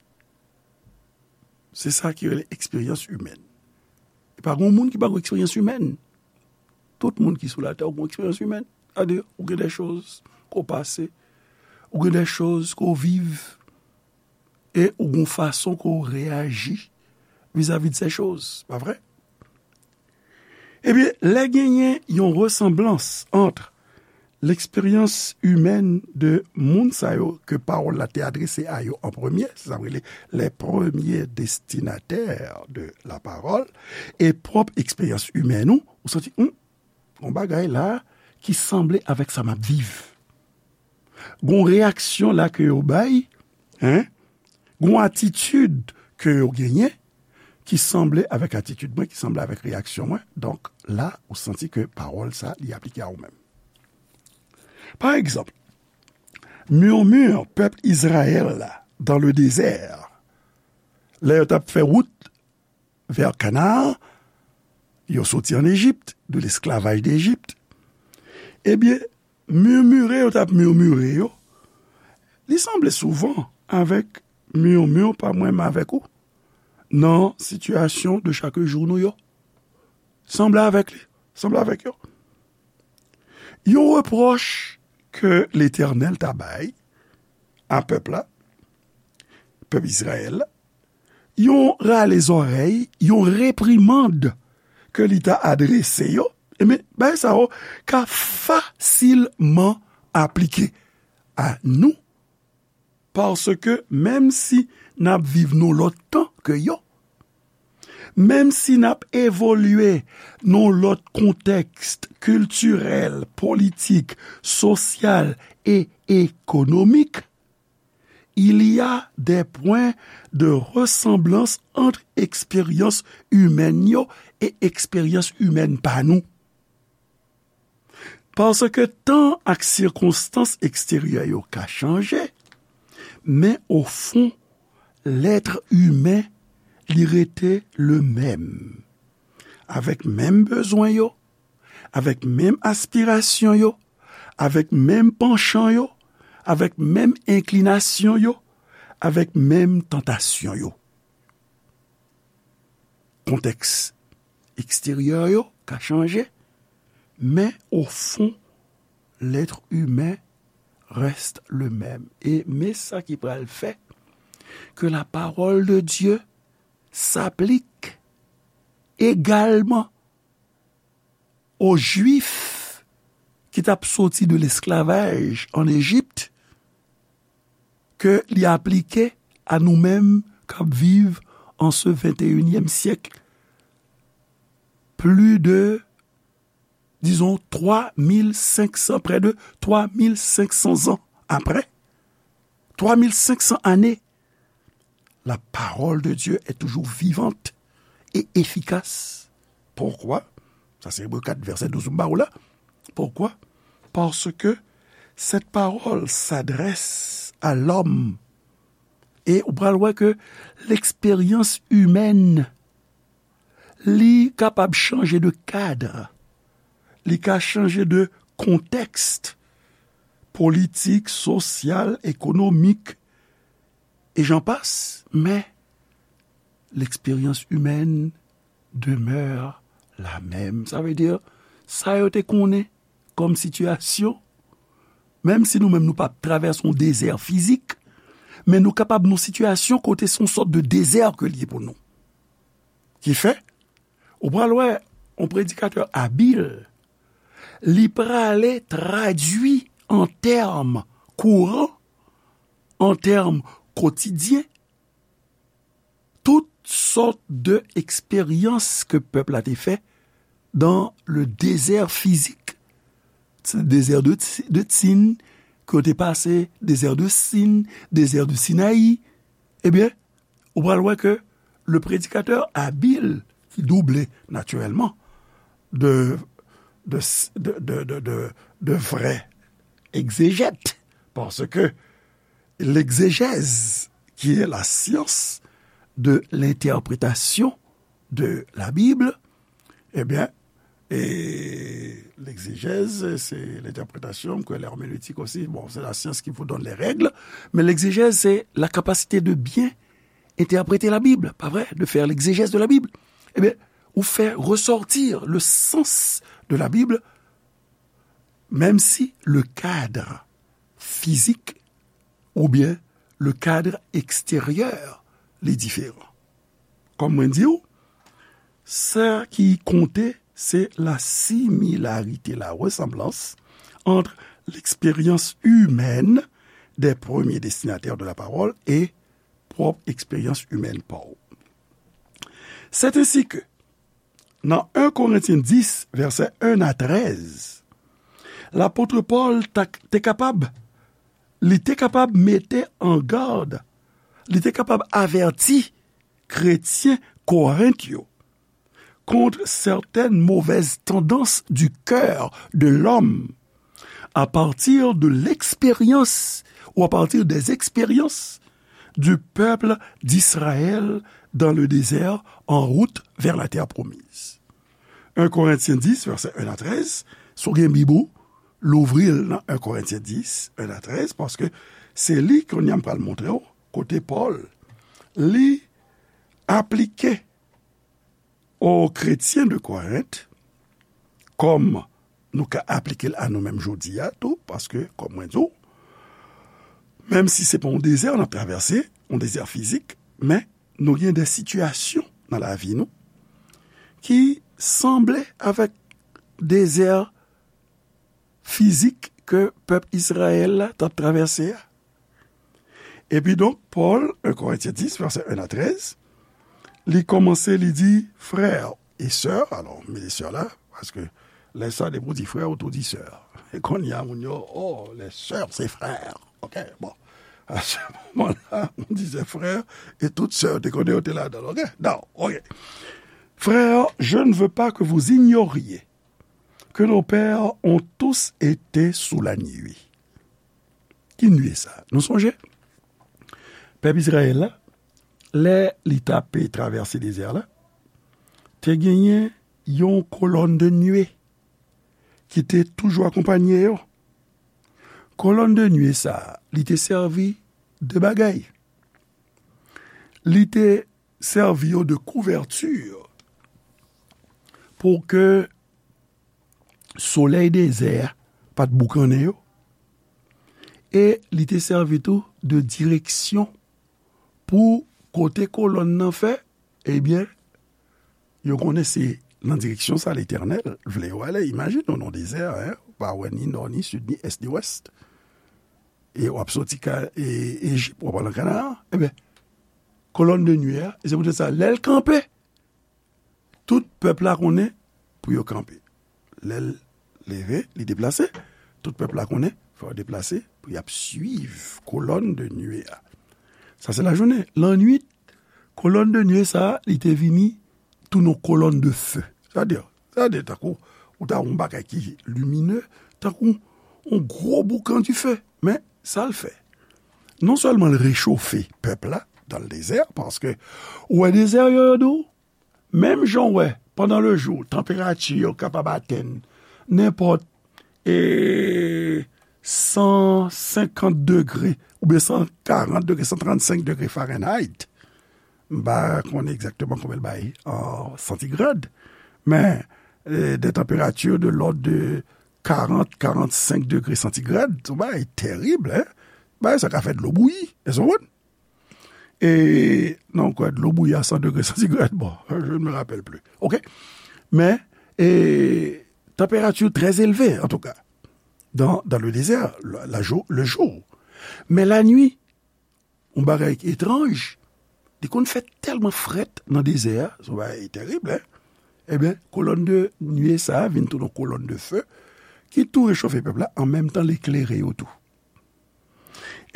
Se sa ki rele eksperyans imèn. E pa gen moun ki pa gen eksperyans imèn. Tout moun ki sou latè gen eksperyans imèn. Sètadi, ou gen de choz ke w pase, ou gen de choz ke w viv, e ou gen fason ke w reyaji vizavi de se choz, pa vre? Ebyen, lè genyen yon resanblans ant leksperyans imèn de moun sa yo ke pawòl la te adrese a yo an premye, se sa yo rele les premiers destinataires de la parole, e pwòp eksperyans imèn ou, ou santi, hmm, gon bagay la ki sanble avèk sa m ap viv. Gon reyaksyon la ke yo bay, hein? Gon atitid ke yo genyen ki sanble avèk atitid mwen, ki sanble avèk reyaksyon mwen. Donk, la, ou santi ke pawòl sa, li aplike a ou menm. Pa egzanp, murmure pèp Izrayèl la dans le désert, lè yo t ap fè wout vè Kanan, yo soti ann Ejip, de lesklavaj de Ejip. Ebyen, murmure yo t ap murmure yo, li sanble souvan avèk murmure pa mwen menm avèk ou, nan sitiyasyon de chak jou nou yo. Sanble avèk li, sanble avèk yo. Yon repwòch ke Letènèl ta bay a pèp la, pèp Izrayèl la, yon rale zòrèy, yon reprimand ke li ta adrese yo, ebyen, bagay sa yo ka fasilman aplike a nou, paske menm si n ap viv nan lòt tan ke yo, menm si n ap evolye nan lòt kontèks kiltirèl, politik, sosyal e ekonomik, il y a des points de ressemblance entre eksperyans imèn yo e eksperyans imèn pa nou. Paske tan ak sikonstans eksteryè yo ka chanje, men o fon, lèt imen, li rete le menm. Avèk menm bezwen yo, avèk menm aspirasyon yo, avèk menm panchan yo, avèk menm enklinasyon yo, avèk menm tantasyon yo. Kontèks eksteryè yo ka chanje, men o fon, lèt imen reste le menm. E men sa ki pral fè ke la parole de Dieu s'applique également aux Juifs ki t ap soti de lesklavaj ann Ejip, ke li aplike a nou menm k ap viv an se venteyinyèm syèk, plis de, dizon, twa mil senk san, près de twa mil senk san zan apre, twa mil senk san ane, la parole de Dieu est toujours vivante et efficace. Pourquoi? Sa se Ebre kat, vèsè douz m ba ou la. Pourquoi? Parce que cette parole s'adresse à l'homme. E ou pral wè ke leksperyans imèn, li kapab chanje de kad, li ka chanje de kontèks politik, sosyal, ekonomik, et j'en passe, men leksperyans imèn demeure la même. Sa vle di, sa yo te konnen kòm sitiyasyon, menm si nou menm nou p ap travèse yon dezè fizik, men nou kapab nan sitiyasyon kote se yon sòt de dezè ke l ye pou nou. Ki fè, ou pral wè yon predikatè abil, li prale tradui an tèm kouran, an tèm kotidyen, tout sòt de eksperyans ke pèp la te fè dans le désert physique. Se dezè de, de Tsin, ke yo te pase, dezè de Sin, dezè de Sinayi. Ebyen, ou pral wè ke le predikatè abil, ki double naturellement de, de, de vrè egzejèt, paske l'exégèse, qui est la science de l'interprétation de la Bible, ebyen, e, L'exégèse, c'est l'interprétation, que l'herméneutique aussi, bon, c'est la science qui vous donne les règles, mais l'exégèse, c'est la capacité de bien interpréter la Bible, pas vrai, de faire l'exégèse de la Bible. Eh bien, ou faire ressortir le sens de la Bible, même si le cadre physique ou bien le cadre extérieur li diferan. Kòm mwen di w, sa ki konte, se la similarité, la ressemblance entre l'expérience humaine des premiers destinataires de la parole et pwòp eksperyans imèn pa w. C'est ainsi que, nan en Korentyen dis, vèsè en a trèz, lapot Pòl ta, te kapab, li te kapab mete an gad, li te kapab avèti kretyen Korent yo contre certaines mauvaises tendances du cœur de l'homme à partir de l'expérience ou à partir des expériences du peuple d'Israël dans le désert en route vers la terre promise. En Korentyen dis, vèsè en a trèz, si w gen Bib ou, louvri l nan en Korentyen dis, en a trèz, paske se li kounye a m pral montre w, kote Pòl, li aplike o kretyen de Korent, kòm nou ka aplike l a nou menm jodi a tou, paske, kòm mwen di w, menm si se pa yon dezè n ap travèse, yon dezè fizik, men nou gen de sitiyasyon nan lavi nou ki sanble avèk dezè fizik ke pèp Izrayèl la t ap travèse a. Epi donk, Pòl, en Korentyen dis, vèsè en a trèz, li kòmanse, li di, frè e sè, alò, m mete sè la, paske lè sa, depi w di frè, ou tou di sè. E kounye a, moun yo, oh, les sœurs, c'est frères. Ok, bon. À ce moment-là, on disait frère, et toute sœur, te konnen yo te ladan l, ok? Non, ok. Frères, je ne veux pas que vous ignoriez que nos pères ont tous été sous la nuée. Ki nuée sa? Nou sonje? Pèp Izrayèl la, lè li t ape travèse dezè la, te genyen yon kolòn de nuée ki te toujou akonpanye yo. Kolòn de nuée sa, li te sèvi de bagay. Li te sèvi yo de kouvèti pou ke solèy dezè a pa t boukannen yo. E li te sèvi tou de direksyon pou kote kolòn nan fè, ebyen, yo konnen se nan direksyon sa Letènèl vle yo ale. Imajine w nan dezè a, en, ou pa wè ni nò, ni sid, ni ès, ni wès. E w ap soti ka, e, Ejip, w ap al nan Kanaan. Ebyen, kolòn de nuée a, e se poutèt sa, lè l kanpe, tout pèp la konnen pou yo kanpe. Lè l leve, li deplase, tout pèp la konnen, fò yo deplase pou y ap swiv kolòn de nuée a. Sa se lajounen. Lannwit, kolòn de nuée sa a, li te vini tounen yon kolòn de feu. Sa vle di, sa vle di tankou, ou ta wè yon bagay ki limine, tankou yon gwo boukan dife. Men, sa l fè? Non sèlman l rechofe pèp la dan le dezè, paske ou wè dezè yo, yo di w, menm jan w wè, pandan le jou, tanperati yo kapab atenn nenpòt, e, san senkant degre, oubyen san karant degre, san trannsenk degre Fahrenheit. M pa konnen egzakteman konbyen l bay an santigrad, men, e, de tanperati de lòd de karant, karannsenk degre santigrad, se yon bagay terib, en. Bagay sa ka fè dlo bouyi, èske w konprann? E, non, kwè, dlo bouyi a san degre santigrad, bon, je ne me rappelle plus. Ok? Men, e, tanperati trè elve, antouka, dans, dans le désert, la, la jou-, le jour. Mais la nuit, yon bagay ki etranj, li konn fè tèlman frèt nan dezè a, se yon bagay terib, en. Ebyen, kolòn de nuée sa a vin tounen yon kolòn de feu, ki tou rechofe pèp la, an menm tan l eklere yo tou.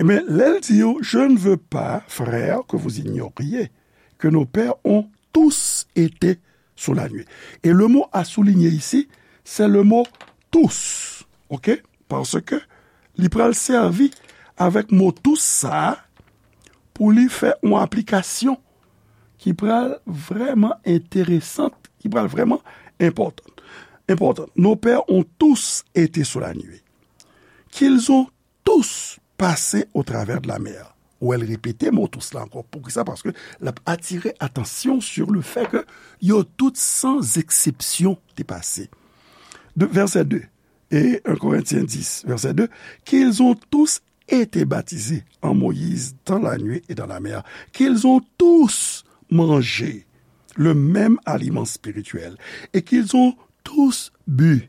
Ebyen, lè l di yo, je ne veux pas, frères, que vous ignoriez que nos pères ont tous été sous la nuée. Et le mot à souligner ici, c'est le mot tous. Ok? Paske li pral sèvi avèk mo tous sa a pou li fè yon aplikasyon ki pral vrèman enteresan, ki pral vrèman enpòtan. Important. Nos pères ont tous été sous la nuée, qu'ils ont tous passé au travers de la mer. Ou wè l repete mo tous la ankò. Poukisa? Paske l ap atire atansyon sur le fait que yo tout, sans exception, te pase. De, verset deux, et un Corinthiens dix, verset deux, qu'ils ont tous été baptisés en Moïse dans la nuée et dans la mer, qu'ils ont tous mangé le même aliment spirituel et qu'ils ont tous bu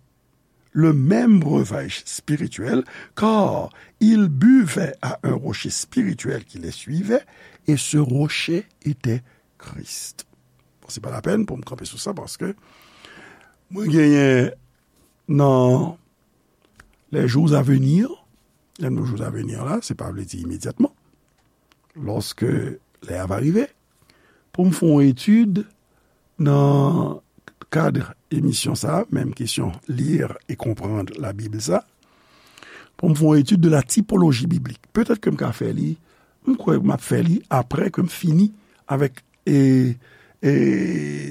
le même breuvage spirituel, car ils buvaient à un rocher spirituel qui les suivait, et ce rocher était Christ. Bon, se pa lapèn pou m kanpe sou sa, paske mwen genyen nan les jours à venir, lè nou jours à venir la, se pa vle di imedyatman, lòske lè a va rive, pou m fè yon etid nan kad emisyon sa, menm kesyon lire e konprann Labib sa, pou m fè yon etid de la tipoloji biblik. Petèt ke m ka fè li, m kwè m ap fè li apre ke m fini avèk e, e,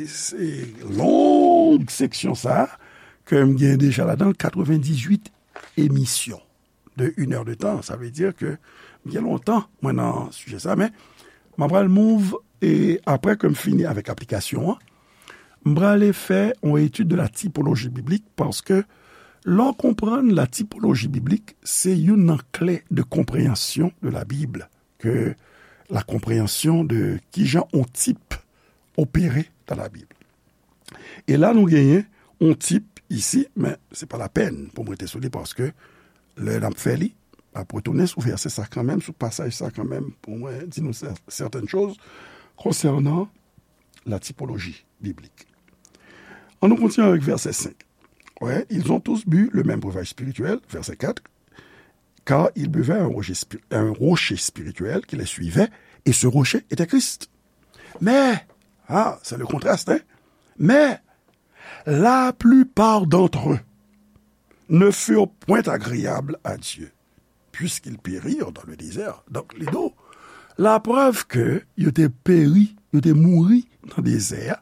se long seksyon sa ke m gen deja ladan l katrevendizuit emisyon de une heure de temps. Sa vle di ke m gen lontan mwen nan sijè sa, men m ap pral move e apre ke m fini avèk aplikasyon an, m prale fè yon etid de la tipoloji biblik, paske lè w konprann la tipoloji biblik, se youn nan kle de konpreyansyon de la Bible, ke la konpreyansyon de kijan yon tip opere dans la Bible. E la, nou genyen yon tip isi, men se pa lapèn pou m rete sou li, paske lè n ap fè li, m ap retounen sou vèsè sa kanmenm, sou pasaj sa kanmenm, pou mwen di nou sè-, sètèn choz konsènan la tipoloji biblik. An nou kontinye avèk vèsè senk. Ouais, ils ont tous bu le même breuvage spirituel, verset quatre, car ils buvaient à un rocher spi-, à un rocher spirituel qui les suivait, et ce rocher était Christ. Mais, ah, c'est le contraste, hein? Mais la plupart d'entre eux ne furent point agréables à Dieu, puisqu'ils périrent dans le désert. Donk, li di w, laprèv ke yo te peri, yo te mouri nan dezè a,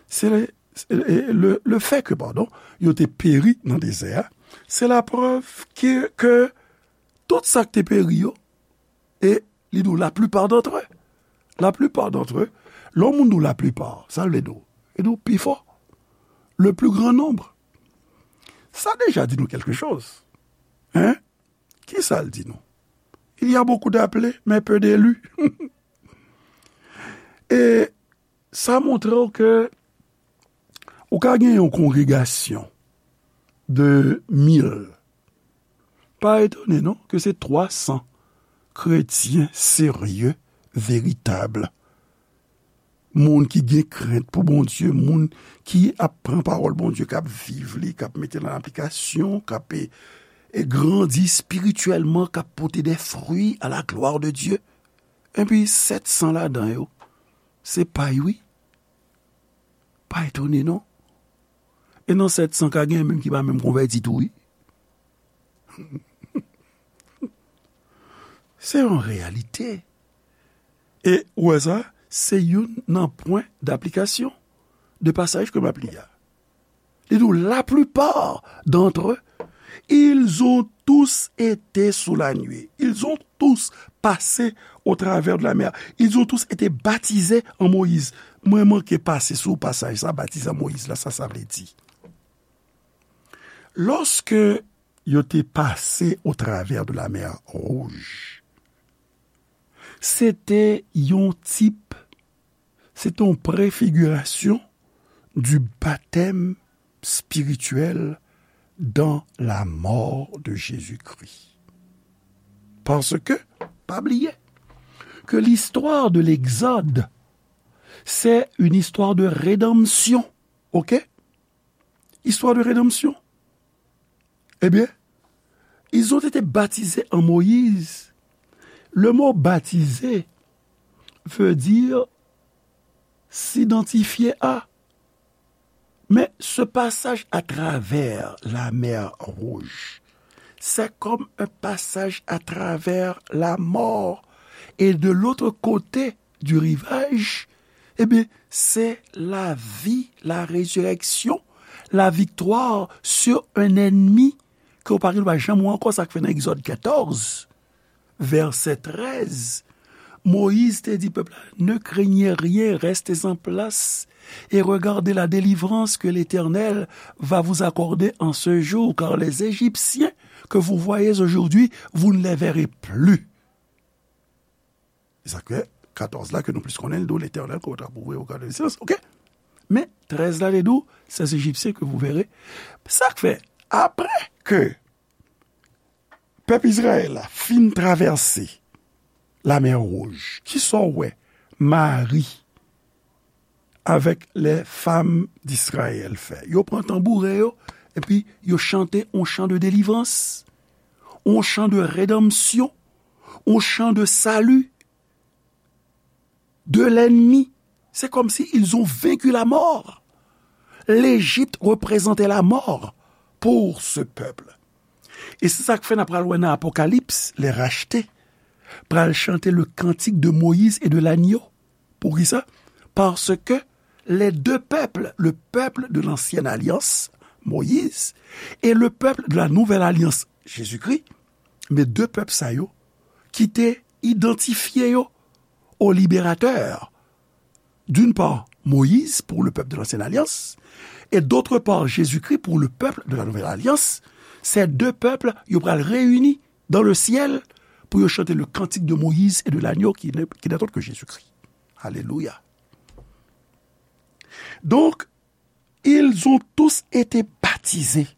se le, se le, le, le fè ke, padon, yo te peri nan dezè a, se laprèv ke, ke tout sa k te peri yo, e li di w, la plupart d'entre eux. La plupart d'entre eux. Lè yon moun di w la plupart, sa l vle di w? Li di w pifò. Le plus grand nombre. Sa deja di nou quelque chose. Hein? Ki sa l di nou? Il y a beaucoup d'appelés, mais peu d'élus. E sa montre w ke ou ka gen yon kongregasyon de mil. Pa etone non ke se twa san kretyen serye, veritab, moun ki gen krent pou Bondye, moun ki ap pran pawòl Bondye, k ap viv li, k ap mete l an aplikasyon, k ap, e, e grandi espirityèlman, k ap pote de fwi à la gloire de Dieu. Epi sèt san ladan yo, se pay wi. Pa etone non. E nan sèt san ka gen menm ki pa menm konvèti tou wi. Se yon reyalite. E ou wè sa, se youn nan pwen daplikasyon de pasaj ke m ap li a. Li di w, la plupart d'entre eux, ils ont tous été sous la nuée. Ils ont tous passé au travers de la mer. Ils ont tous été baptisés en Moïse. Mwen manke pase sou pasaj sa, batize an Moyiz la, sa sa vle di. Lòske yo te pase au travers de la mer Rouge, se te yon tip, se te yon prefigirasyon du baptême spirituel dans la mort de Jésus-Christ. Paske, pa bliye, ke l'histoire de l'Exode, c'est une histoire de rédemption. Ok? Histoire de rédemption. Eh bien, ils ont été baptisés en Moïse. Le mot baptisé veut dire s'identifier à. Mais ce passage à travers la mer Rouge, c'est comme un passage à travers la mort. Et de l'autre côté du rivage, eh bien, c'est la vie, la résurrection, la victoire sur un ennemi ke w pa gen dwa janm wè ankò. Sa k fè nan Egzòd katòz, vèsè trèz, Moyiz te di pèp la, ne craignez rien, restez en place et regardez la délivrance que l'Éternel va vous accorder en ce jour, car les Égyptiens que vous voyez aujourd'hui, vous ne les verrez plus. E sa k fè katòz la ke nou plis konnen, l di w, Letènèl kontrapouve au garde de silence. Oke? Men trèz la, li di w, ces Égyptiens que vous verrez. Sa k fè, apre ke pèp Izrayèl la fin travèse Lamè Wouj, kisa w wè Mari avèk les femmes d'Israël fè? Yo pran tanbouren yo, epi yo chante yon chan de délivrance, yon chan de rédemption, yon chan de salut de l'ennemi. C'est comme si ils ont vaincu la mort. L'Égypte représentait la mort pour ce peuple. E se sa k fè n ap pral wè nan Apokalips, les rachetés pral chante le cantique de Moïse et de l'agneau. Poukisa? Parce que les deux peuples, le peuple de l'ancienne alliance, Moïse, et le peuple de la nouvelle alliance, Jésus-Christ, men de pèp sa yo ki te idantifye yo au libérateur, d'une part Moïse pour le peuple de l'ancienne alliance, et d'autre part Jésus-Christ pour le peuple de la nouvelle alliance, ces deux peuples, yo pral reyini dans le ciel pour yo chante le cantique de Moïse et de l'agneau qui n'est, qui n'est autre que Jésus-Christ. Alléluia. Donc, ils ont tous été baptisés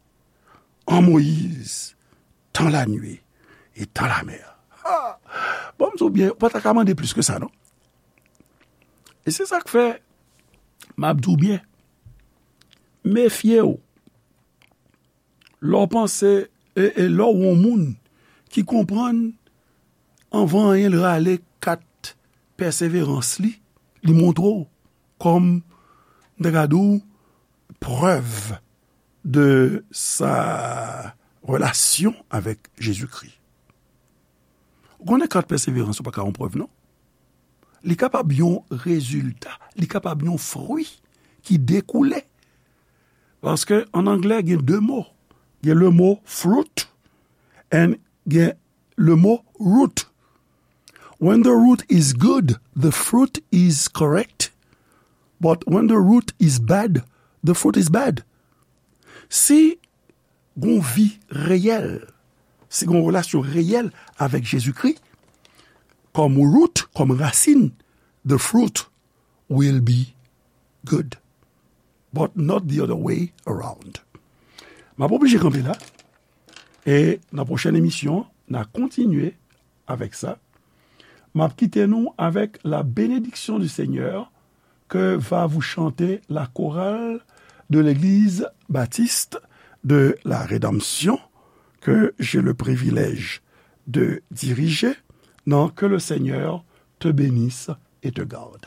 en Moïse, dans la nuée et dans la mer. Ah! Bon, m di w byen, ou pa ta ka mande plis ke sa, non? E se sa k fè, m ap di w byen, mefye w lè w panse, e, e lè w yon moun ki konprann anvan anyen l rale kat pèseverans li, li montre w kòm, m ta ka di w, prèv de sa relasyon avèk Jezikri. Ou konnen kat pèseverans ou pa ka yon prèv, non? Li kapab yon rezilta, li kapab yon fwi ki dekoule. Paske an anglè, gen de mo. Gen le mo fruit and gen le mo root. When the root is good, the fruit is correct. But when the root is bad, the fruit is bad. Si gon vi reyèl, si gon relasyon reyèl avèk Jezikri, kòm root, kòm rasin, the fruit will be good, but not the other way around. M ap oblije kanpe la, e nan pwochèn emisyon, n a kontinye avèk sa. M ap kite nou avec la bénédiction du Seigneur que va vous chanter la chorale de l'église baptiste de la Rédemption que j'ai le privilège de diriger. Non, que le Seigneur te bénisse et te garde.